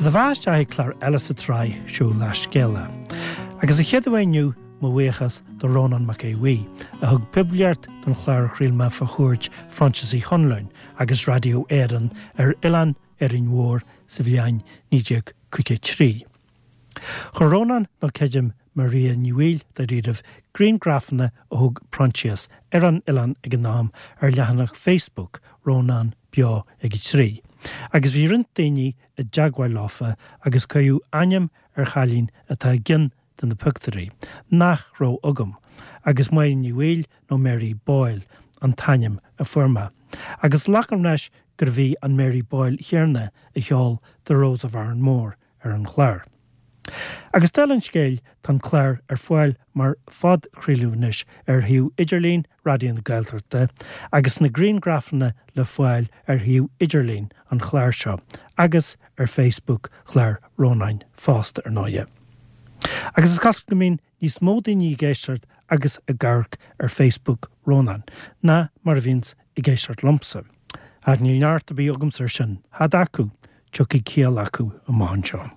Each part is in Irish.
Seo do bheatha isteach ag clár eile sa tsraith seo Leath Scéala. Agus a chéad uair inniu, mo bhuíochas do Rónán Mac Aodha Bhuí, a thug poiblíocht don chlár a chraol mé fá chuairt Phroinsias Uí Chonluain agus Raidió Éireann ar Oileán Árainn Mhór sa bhliain 1953. Chuir Rónán, nó creidim Maria Ní Bhaoill dáiríribh, griangrafanna a thóg Proinsias ar an oileán ag an am ar leathanach Facebook Rónán Beo ag a 3, agus bhí roinnt daoine i dteagmháil leofa agus cuireadh ainm ar chailín atá i gceann de na pioctúirí, nach raibh agam, agus Máire Ní Bhaoill nó Mary Boyle an t-ainm a fuair mé, agus glacaim leis gurbh í an Mary Boyle chéanna a cheol The Rose of Arranmore ar an chlár. Agus dála an scéil, tá an clár ar fáil mar phodchraoladh anois ar shuíomh idirlín Raidió na Gaeltachta agus na griangrafanna le fáil ar shuíomh idirlín an chláir seo agus ar Facebook chlár Rónáin fosta, ar ndóighe. Agus is cosúil go mbíonn níos mó daoine ag éisteacht agus ag amharc ar Facebook Rónáin ná mar a bhíonns ag éisteacht liomsa. Ach níl neart ar bith agamsa ar sin, tada acu, tiocfaidh ciall acu amach anseo.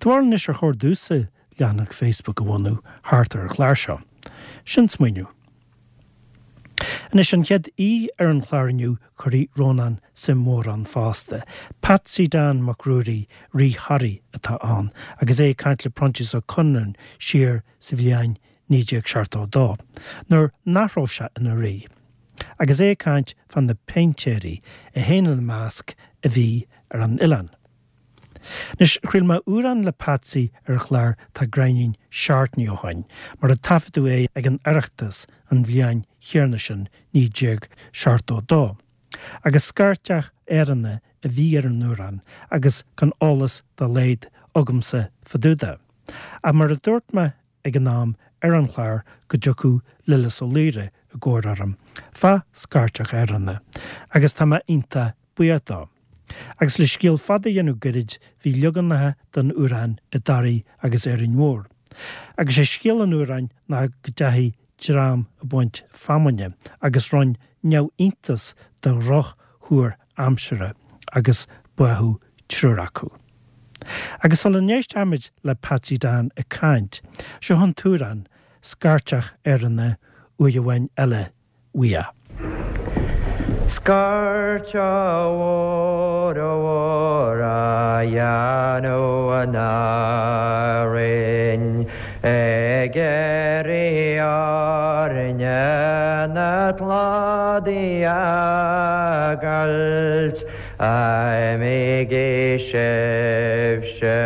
Do bharúil anois ar chóir domhsa leathanach Facebook a bhunú thart ar an chlár seo? Sin smaoineamh. Anois, an chéad aoi ar an chlár inniu, cuirfidh Rónán suim mhór ann fosta. Patsy Dan Mac Ruairí, Rí Thoraí, atá ann, agus é ag caint le Proinsias Ó Conluain siar sa bhliain 1972, nuair nach raibh sé ina rí, agus é ag caint fá na péintéirí, é féin ina measc, a bhí ar an oileán. Anois, chraol mé amhrán le Patsy ar an chlár Tá Gráinnín Seachtainí ó shoin, mar a taifeadadh é ag an Oireachtas an bhliain chéanna sin, 1972. Agus scairteach Éireannach a bhí ar an amhrán agus gan eolas dá laghad agamsa fá dtaobh de. Ach mar a dúirt mé ag an am ar an chlár go dtiocfadh Lillis Ó Laoire i gcabhair orm fá scairteach Éireannach, agus tá mé iontach buíoch dó. Agus le scéal fada a dhéanamh goirid, bhí leaganacha den amhrán i dToraigh agus Árainn Mhór. Agus sé scéal an amhráin ná go dteachaigh dream ag baint feamainne agus rinn neamhiontas de dhroch-thuar aimsire agus báthadh triúr acu. Agus sula n-éistfimid le Patsy Dan ag caint, seo an t-amhrán, Scairteach Éireannach, uair amháin eile uaidh. Scairteach mhór mhór a dhéanamh in Árainn ag iarraidh orainne na cladaí a fhágáilt Imígí sibhse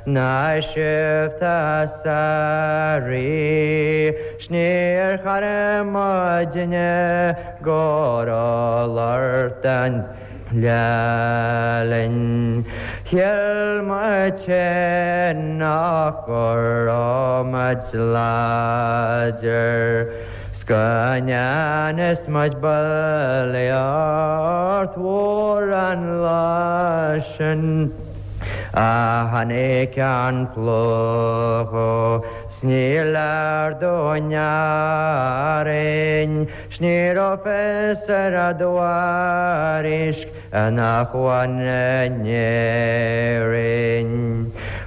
ná sibh tá sa rí 's níor chara muidne go raibh lort an lá linn. Shíl muid féin nach go raibh muid láidir 's go ndearna muid bulaíocht mhór an lá sin. A tháinig an plúchadh 's níor leor dúinn Árainn 's ní raibh fios ar an dtuairisc in acmhainn in Éirinn.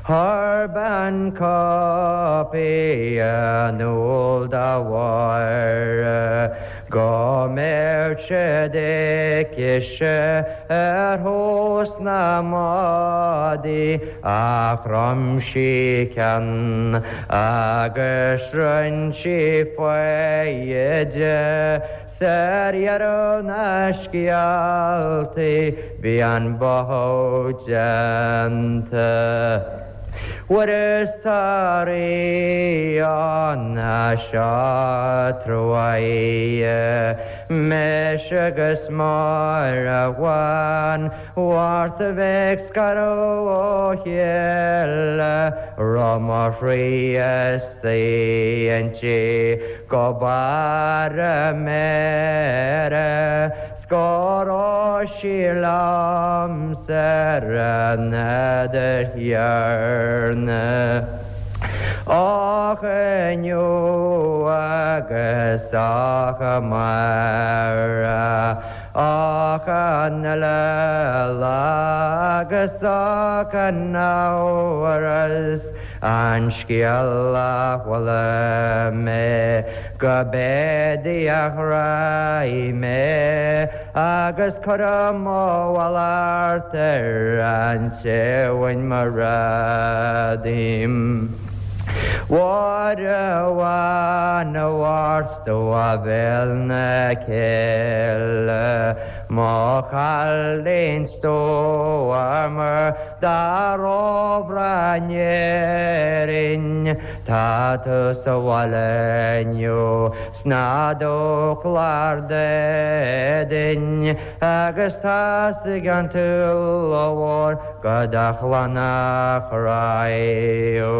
Chuir bean cóipí in iúl do Mháire Go mbeadh siad aicise ar thús na mbádaí ach chrom sí ceann agus rinn sí foighde 's ar dheireadh na scéaltaí bhí an báthadh déanta. Fuaireas a rí an seo truaighe mise agus Máire Bhán Mhárta bheith ag scaradh ó chéile raibh mo chroí istigh inti go barr a méire 's go raibh sí liomsa ar an fheadar chéanna. Ach inniu agus ach amárach. Ach an uile lá agus gan amhras an scéal a chuala mé go b'é Dia a ghráigh mé agus cuirim mo mhallacht ar an té a bhain mo ghrá díom. Mháire bhán a mharsta a bhéal na cille, mo chailín stuama dá róbhreá in Éirinn, tá tú sa bhaile inniu sna dúchláir d'éadain agus tá's ag an tSúil Mhór go do chlann a chroíú.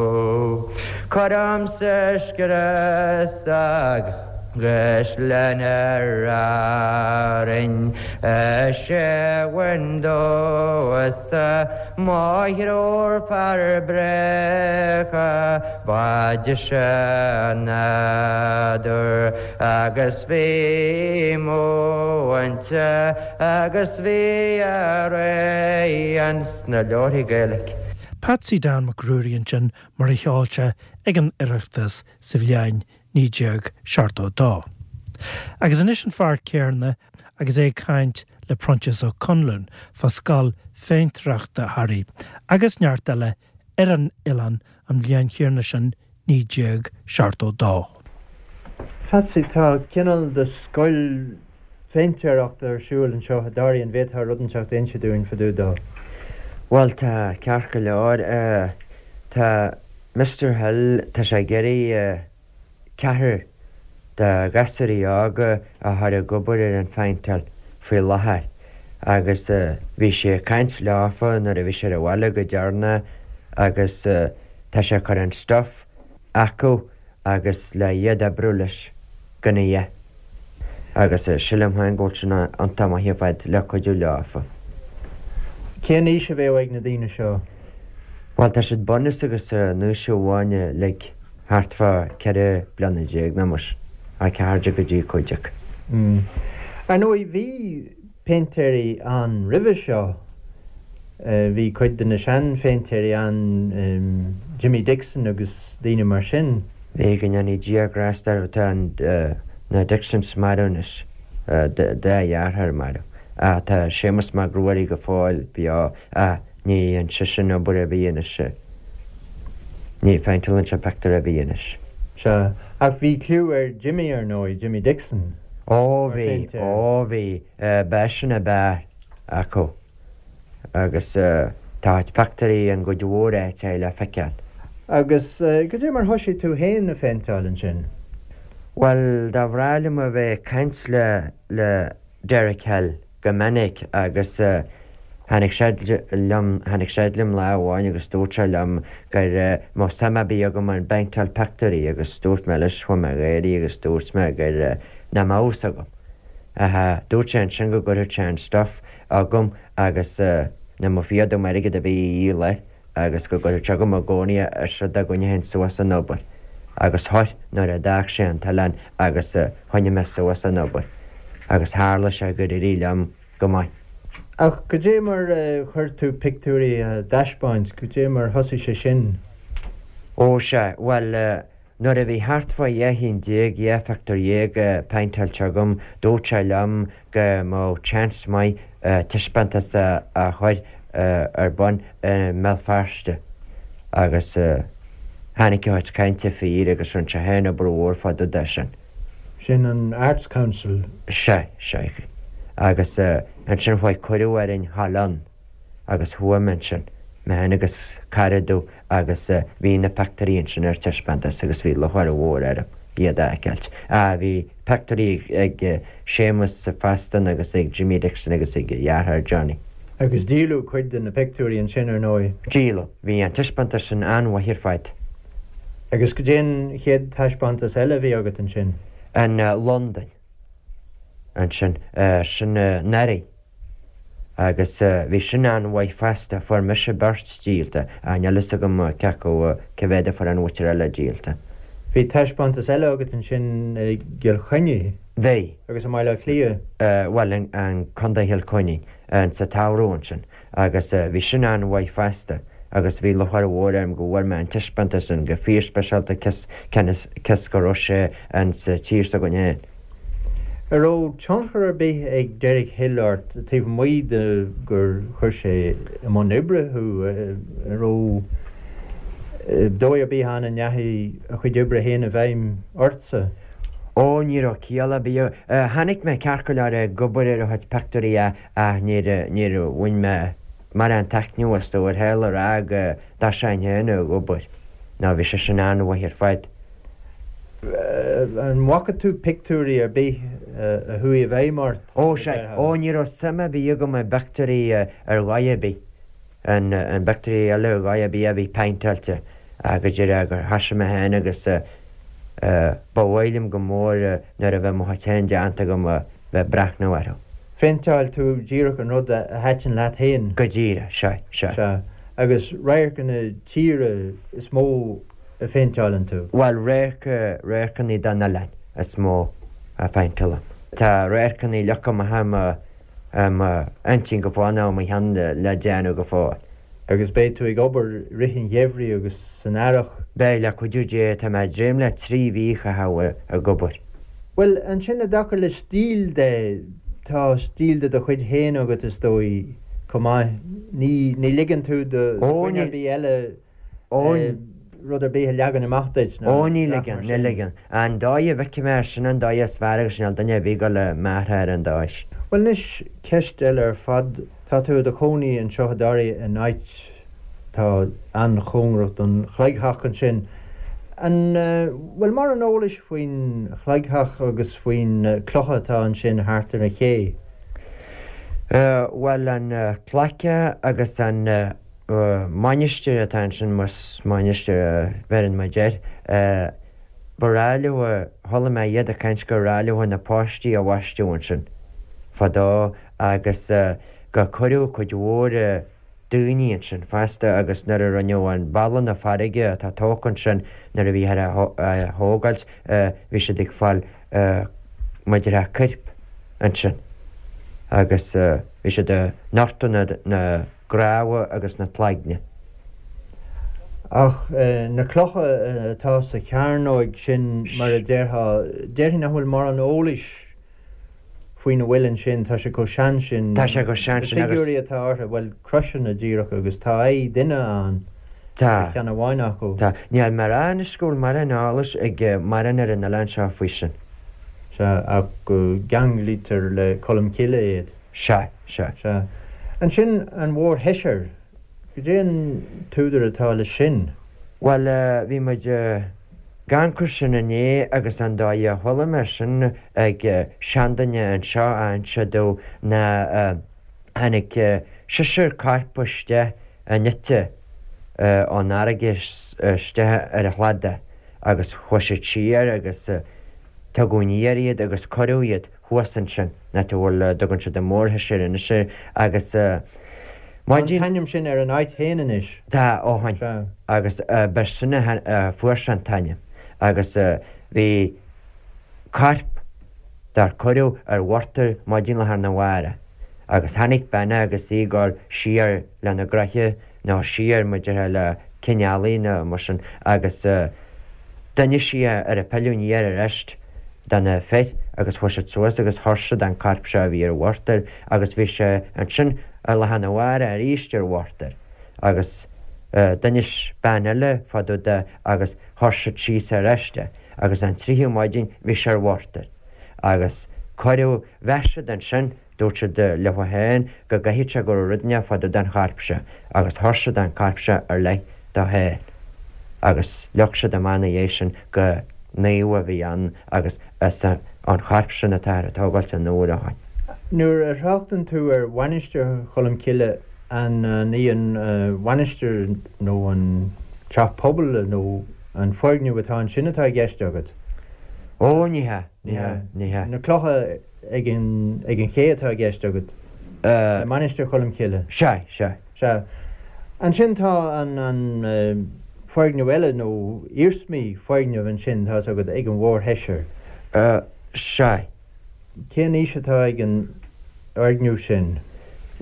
Cuirimse scrios agus lena Árainn is é bhain domhsa mo thriúr fear bréagha ba deise an nádúr agus bhí múinte agus bhí araon sna leabharthaí Gaeilge. Patsy Dan Mac Ruairí ansin mar a cheol sé ag an Oireachtas sa bhliain 1972. Agus anois an fear céarna agus é ag caint le Proinsias Ó Conluain fá scoil phéintéireachta Thoraí agus neart eile ar an oileán an bhliain chéarna sin 1972. Patsy, tá cineál de scoil phéintéireachta ar siúl anseo i dToraí, an bhféadfá rud inteacht a inse dúinn fá dtaobh dó? Bhuel, tá, ceart go leor. Tá Mister Hill, tá sé ag iarraidh ceathrar de ghasúirí óga a chur ag obair ar an phéinteáil faoi láthair agus bhí sé ag caint leofa nuair a bhí sé ar an bhaile go deireanach agus tá sé ag cur an stuff acu agus le iad oibriú leis gan a dhath. Agus sílim féin go bhfuil sin iontach maith ar fad le cuidiú leofa. Cén aois a bheadh ag na daoine seo? Bhuel, tá siad bunús agus an aois amháin uilig, thart fá 14 bliana nó mar sin, 14 go dtí 15. Ar ndóigh, bhí péintéirí ann roimhe seo. Bhí cuid de na seanphéintéirí ann, Jimmy Dixon agus daoine mar sin. Bhí, go ndéanaí Dia grásta orthu, tá na Dixons marbh anois, dá dheartháir marbh. Ach tá Séamus Mac Ruairí go fóill beo ach ní dhéanann seisean obair ar bith anois. Ní phéinteálann sé pictiúr ar bith anois. Sea, ach bhí cliú ar Jimmy ar ndóigh, Jimmy Dixon. Ó bhí, ó bhí, b'eisean ab fhearr acu agus tá a chuid pictiúirí in gcuid mhór áiteacha le feiceáil. Agus goidé mar thoisigh tú féin a phéinteáil ansin? Bhuel, dá bhreá liom a bheith ag caint le, le Derek Hill go minic agus tháinig sé liom, tháinig sé liom lá amháin agus dúirt sé liom gur mbeadh suim ar bith agam i bpéinteáil pictiúirí agus dúirt mé leis, chuaigh mé ag gáirí agus dúirt mé gur nach mbeadh fhios agam. Ach dúirt sé ansin go gcuirfeadh sé an stuff chugam agus nach mbeadh fíor dom airgead ar bith a dhíol air. agus go gcuirfeadh sé chugam i gcónaí é is rud dá gcoinneochainn suas an obair agus chuir nuair a d'fhág sé an t-oileán agus choinnigh mé suas an obair agus tharla sé gur éirigh liom go maith. Ach goidé mar a chuir tú pictiúirí á dtaispeáint, goidé mar thosaigh sé sin? Ó sea, bhuel, Nuair a bhí thart fá 12 chinn, 12 phictiúr péinteáilte agam, dúirt sé liom go mbeadh chance maith taispeántas a chur ar bun i mBéal Feirste agus tháinig a chuid cainte fíor agus rinne sé féin obair mhór fá dtaobh de sin. Sin an Arts Council? Sea, sea. Agus ansin chuaigh cuireadh orainn dhul ann. agus chuaigh mé ansin, mé féin agus cara domh agus bhí na pictiúirí ansin ar taispeántas agus bhí lúcháir mhór orm iad a fheiceáilt. Ah, bhí pictiúirí ag Séamus fosta agus ag Jimmy Dixon agus ag a dheartháir Johnny. Agus díoladh cuid de na pictiúirí ansin, ar ndóigh. Díoladh. Bhí an taispeántas sin an-mhaith ar fad. Agus goidé an chéad taispeántas eile a bhí agat ansin? In Londain ansin. Sin anuraidh. Agus bhí sin an-mhaith fosta, fuair mise beirt díolta, ach níl fhios agam cé acu, cé mhéad a fuair an mhuintir eile díolta. Bhí taispeántas eile agat ansin i gCill Chainnigh. Bhí. Agus i mBaile Átha Cliath? Bhuel, in Contae Chill Chainnigh, sa tsamhradh ansin. Agus bhí sin an-mhaith fosta. Agus bhí lúcháir mhór orm go bhfuair mé an taispeántas sin go fíorspeisialta cionn is go raibh sé insa tír s'againn féin. An raibh tionchar ar bith ag Derek Hill ort taobh amuigh de gur chuir sé i mbun oibre thú? An raibh dóigh ar bith ann a ndeachaigh a chuid oibre féin i bhfeidhm ortsa? Ó, ní raibh ciall ar bith. Chonaic mé ceart go leor ag obair ar a chuid pictiúirí ach níor, níor bhain mé mórán taitneamh astu ar shaol a rá go dtosóinn féin ag obair. Nó bhí sé sin an-mhaith ar fad. An bhfaca tú pictiúirí ar bith a chuaigh i bhfeidhm ort? Ó, sea. Ó, ní raibh suim ar bith agam i bpictiúirí ar dhóigh ar bith. I bpictiúirí eile ar dhóigh ar bith a bhí péinteáilte. Ach go díreach gur thosaigh mé féin agus ba mhaith liom go mór nuair a bheadh mo chuid féin déanta agam a bheith ag breathnú orthu. Phéinteáil tú díreach an rud a thaitin leat féin? Go díreach, sea, sea. Sea. Agus radharcanna tíre is mó a phéinteáileann tú? Bhuel, radharc, radharcanna den oileán is mó a phéinteálaim. Tá radharcanna leagtha amach i mo, i mo intinn go fóill nó i mo cheann le déanamh go fóill. Agus beidh tú ag obair i rith an gheimhridh agus san earrach? Beidh, le cuidiú Dé. Tá mé ag dréim le 3 mhí a chaitheamh ag obair. Bhuel, ansin i dtaca le stíl de, tá stíl de do chuid féin agat is dóigh, chomh maith. Ní, ní ligeann tú do dhuine ar bith eile rud ar bith a leagan amach duit ná Ó, ní ligeann, ní ligeann. An dóigh a bhfeicim é, sin an dóigh is fearr agus níl duine ar bith ag dul a m'athrú ar an dóigh sin. Bhuel anois, ceist eile ar fad. Tá tú i do chónaí anseo i dToraigh in áit atá an-chóngarach don chloigtheach ansin. An bhfuil mórán eolais faoin chloigtheach agus faoi na clocha atá ansin thart ar an ché? Bhuel, an cloigtheach agus an mainistir atá ansin, más mainistir a bheireann muid air, ba ghnách leo, chuala mé iad ag caint gur ghnách leo na páistí a bhaisteadh ansin fadó agus gur cuireadh cuid mhór daoine ansin fosta agus nuair a rinneadh an balla na farraige atá tógtha ansin nuair a bhíothar á thógáilt bhí siad ag fáil mar a déarfá coirp ansin agus bhí siad ag nochtadh na gcnámha agus na cloigne. Ach na clocha atá sa chearnóig sin, mar a déarfá, déarfainn nach bhfuil mórán eolais faoina bhfuil ansin, tá sé chomh sean sin. Tá sé chomh sean sin agus. Na figiúirí atá orthu, bhuel, croiseanna díreach agus tá aghaidh duine ann ar cheann amháin acu. Tá. Níl mórán anois go bhfuil mórán eolais ag mórán ar an oileán seo faoi sin. Sea, ach go gceanglaítear le Colm Cille iad. Sea, sea. Sea. Ansin an mhórsheisear, goidé an t-údar atá leis sin? Bhuel, bhí muid ag amharc air sin inné agus an dóigh a chuala mé sin ag seanduine anseo a inse domh ná tháinig seisear corp isteach in eite ón fharraige isteach ar an chladach agus chuaigh siad siar agus tugadh aniar iad agus cuireadh iad thuas ansin, an áit a bhfuil, a dtugann siad an mhórsheisear anois air, agus Tá an t-ainm sin ar an áit féin anois. Tá, ó shin. Sea. Agus b'shin a fuair sé an t-ainm. Agus bhí corp dár cuireadh ar mhurtar maidin lá arna mhárach. Agus tháinig bean agus í ag dul siar lena gnoithe nó siar mar a déarfá le cionn eallaigh nó mar sin agus d'inis sí ar a pilleadh aniar arís do na fir agus chuaigh siad suas agus chuir siad an corp seo a bhí ar mhurtar agus bhí sé ansin ar lá arna mhárach arís ar mhurtar agus d'inis bean eile fá dtaobh de agus chuir siad síos arís é agus an tríú maidin bhí sé ar mhurtar agus cuireadh mheas siad ansin Dúirt siad leo féin go gcaithfeadh sé go raibh rud inteacht fá dtaobh den chorp seo agus chuir siad an corp seo ar leith dó féin agus leag siad amach ina dhiaidh sin go naomh a bhí ann agus is an chorp sin atáthar ag tógáilt an uair ó shin. Nuair a thráchtann tú ar Mhainistir Cholm Cille, an í an mhainistir nó an teach pobail nó an foirgneamh atá ansin atá i gceist agat? Ó, ní hea, ní hea, ní hea. Na clocha ag an ag an ché atá i gceist agat? Le Mainistir Cholm Cille? Sea, sea. Sea. Ansin tá an an foirgneamh eile nó iarsmaí foirgneamh ansin, tá's agat, ag an mhórsheisear. Sea. Cén aois atá ag an fhoirgneamh sin?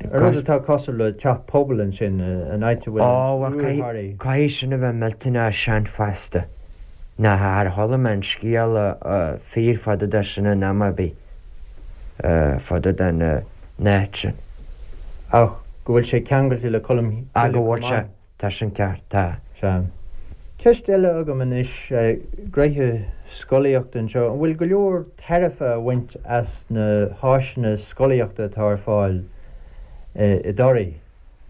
An rud atá cosúil le teach pobail ansin, an áit a bhfuil an Iúr Thoraí. Caithfidh sin a bheith millteanach sean fosta. Ná char chuala mé an scéal fíor fá dtaobh de sin in am ar bith fá dtaobh den áit sin. Ach go bhfuil sé ceangailte le Colmcille chomh maith. Go bhfuil sé. Tá sin ceart, tá. Sea. Ceist eile agam anois, gnoithe scolaíochta anseo, an bhfuil go leor tairbhe á bhaint as na háiseanna scolaíochta atá ar fáil i dToraigh,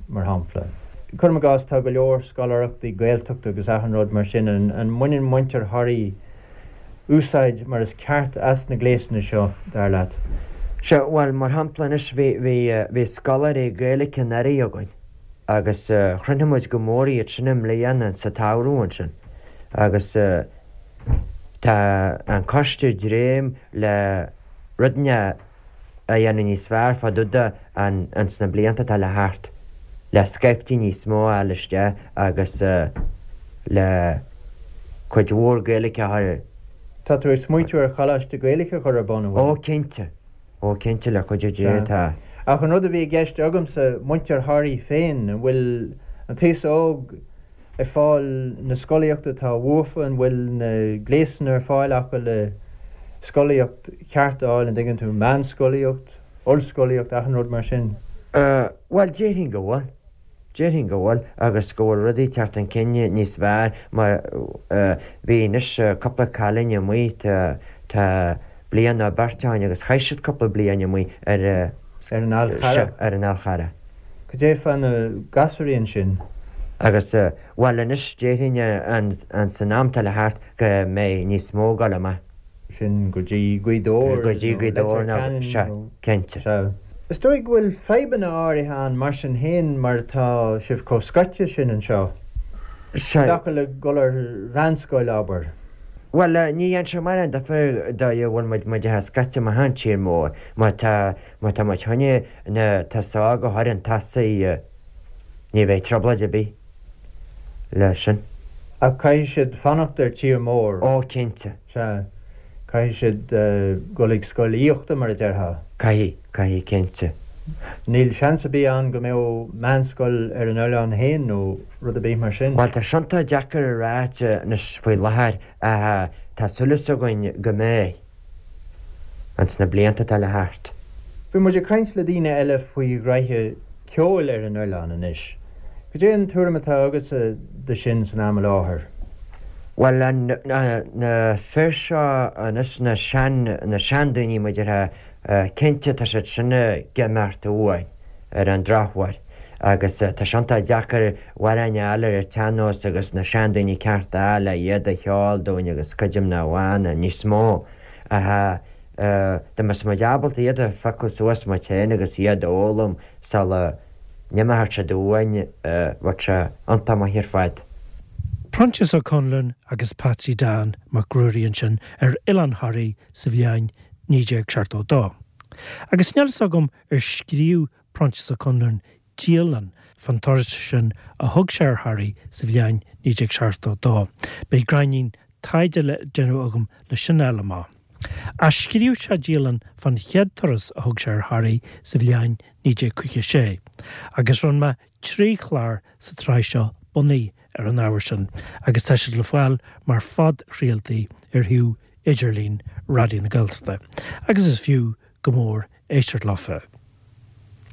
mar shampla? Cuirim i gcás, tá go leor scoláireachtaí Gaeltachta agus achan rud mar sin, an mbaineann muintir Thoraí úsáid mar is ceart as na gléasanna seo, dar leat? Sea, bhuel, mar shampla anois, bhí, bhí, bhí scoláirí Gaeilge anuraidh againn. agus chruinnigh muid go mór iad sin i mbliana sa tsamhradh ansin agus tá an coiste ag dréim le rud inteacht a dhéanamh níos fearr fá dtaobh de ins na blianta atá le theacht, le scaifte níos mó a fháil isteach agus le cuid mhór Gaeilge a chur. Tá tú ag smaoitiú ar choláiste Gaeilge a chur ar bun, an bhfuil? Ó cinnte. Ó, cinnte, le cuidiú Dé, tá. Ach an rud a bhí i gceist agamsa, muintir Thoraí féin, an bhfuil an t-aos óg ag fáil na scolaíochta atá uafa, an bhfuil na gléasanna ar fáil acu le scolaíocht cheart a fháil, an dtuigeann tú, meánscolaíocht, ollscolaíocht, achan rud mar sin? Bhuel, déarfainn go bhfuil. Déarfainn go bhfuil, agus go bhfuil rudaí ag teacht chun cinn níos fearr mar bhí anois cúpla cailín amuigh tá bliain nó beirt ó shin agus chaith siad cúpla bliain amuigh ar Ar an Fhál Carrach? Ar an Fhál Charrach. Cad é fá na gasúraí ansin? Agus, bhuel anois déarfainn an san am atá le theacht go mbeidh níos mó ag dul amach. sin go dtí Gaoth Dobhair Go dtí Gaoth Dobhair nó Leitir Ceanainn sea, nó. cinnte. Sea. Is dóigh go bhfuil fadhbanna áirithe ann mar sin féin mar atá sibh chomh scoite sin anseo. I Sea. dtaca le dul ar mheánscoil, abair. Bhuel, ní dhéanann sé mórán difear dóigh a bhfuil muid muid atá scoite amach ón tír mór. Má tá má tá muid chun na tosóg a chur chun tosaigh ní bheidh trioblóid ar bith leis sin. Ach caithfidh siad fanacht ar tír mór. Ó, cinnte. Sea. Caithfidh siad dul ag scoil aíochta, mar a déarfá. Caithfidh, caithfidh, cinnte. Níl seans ar bith ann go mbeadh meánscoil ar an oileán féin nó rud ar bith mar sin. Bhuel, tá sin iontach deacair a ráit anois faoi láthair ach tá súil againn go mbeidh. ins na blianta atá le theacht. Bhí muid ag caint le daoine eile faoi ghraithe ceoil ar an oileán anois. Cad é an tuairim atá agatsa de sin san am i láthair? Bhuel, na fir seo anois, na sean, na seandaoine mar a déarfá, cinnte tá siad sin ag imeacht uainn ar an drochuair agus tá sé iontach deacair amhráin a fháil ar an tsean-nós agus na seandaoine ceart a fháil le iad a cheol dúinn agus cuid na bhfána níos mó ach dá mbeadh muid ábalta iad a phiocadh suas muid féin agus iad a fhoghlaim sula n-imeoidh siad uainn bheadh sé iontach maith ar fad. Proinsias Ó Conluain agus Patsy Dan Mac Ruairí ansin ar Oileán Thoraí sa bhliain 1972. Agus níl fhios agam ar scríobh Proinsias Ó Conluain dialann fán turas sin a thug sé ar Thoraigh sa bhliain 1972. Beidh gráinnín taighde le déanamh agam le sin a fháil amach. Ach scríobh sé dialann fán chéad turas a thug sé ar Thoraigh sa bhliain 1956, agus rinne mé 3 chlár sa tsraith seo bunaithe ar an ábhar sin, agus tá siad le fáil mar phodchraoltaí ar shuíomh idirlín Raidió na Gaeltachta, agus is fiú go mór éisteacht leofa.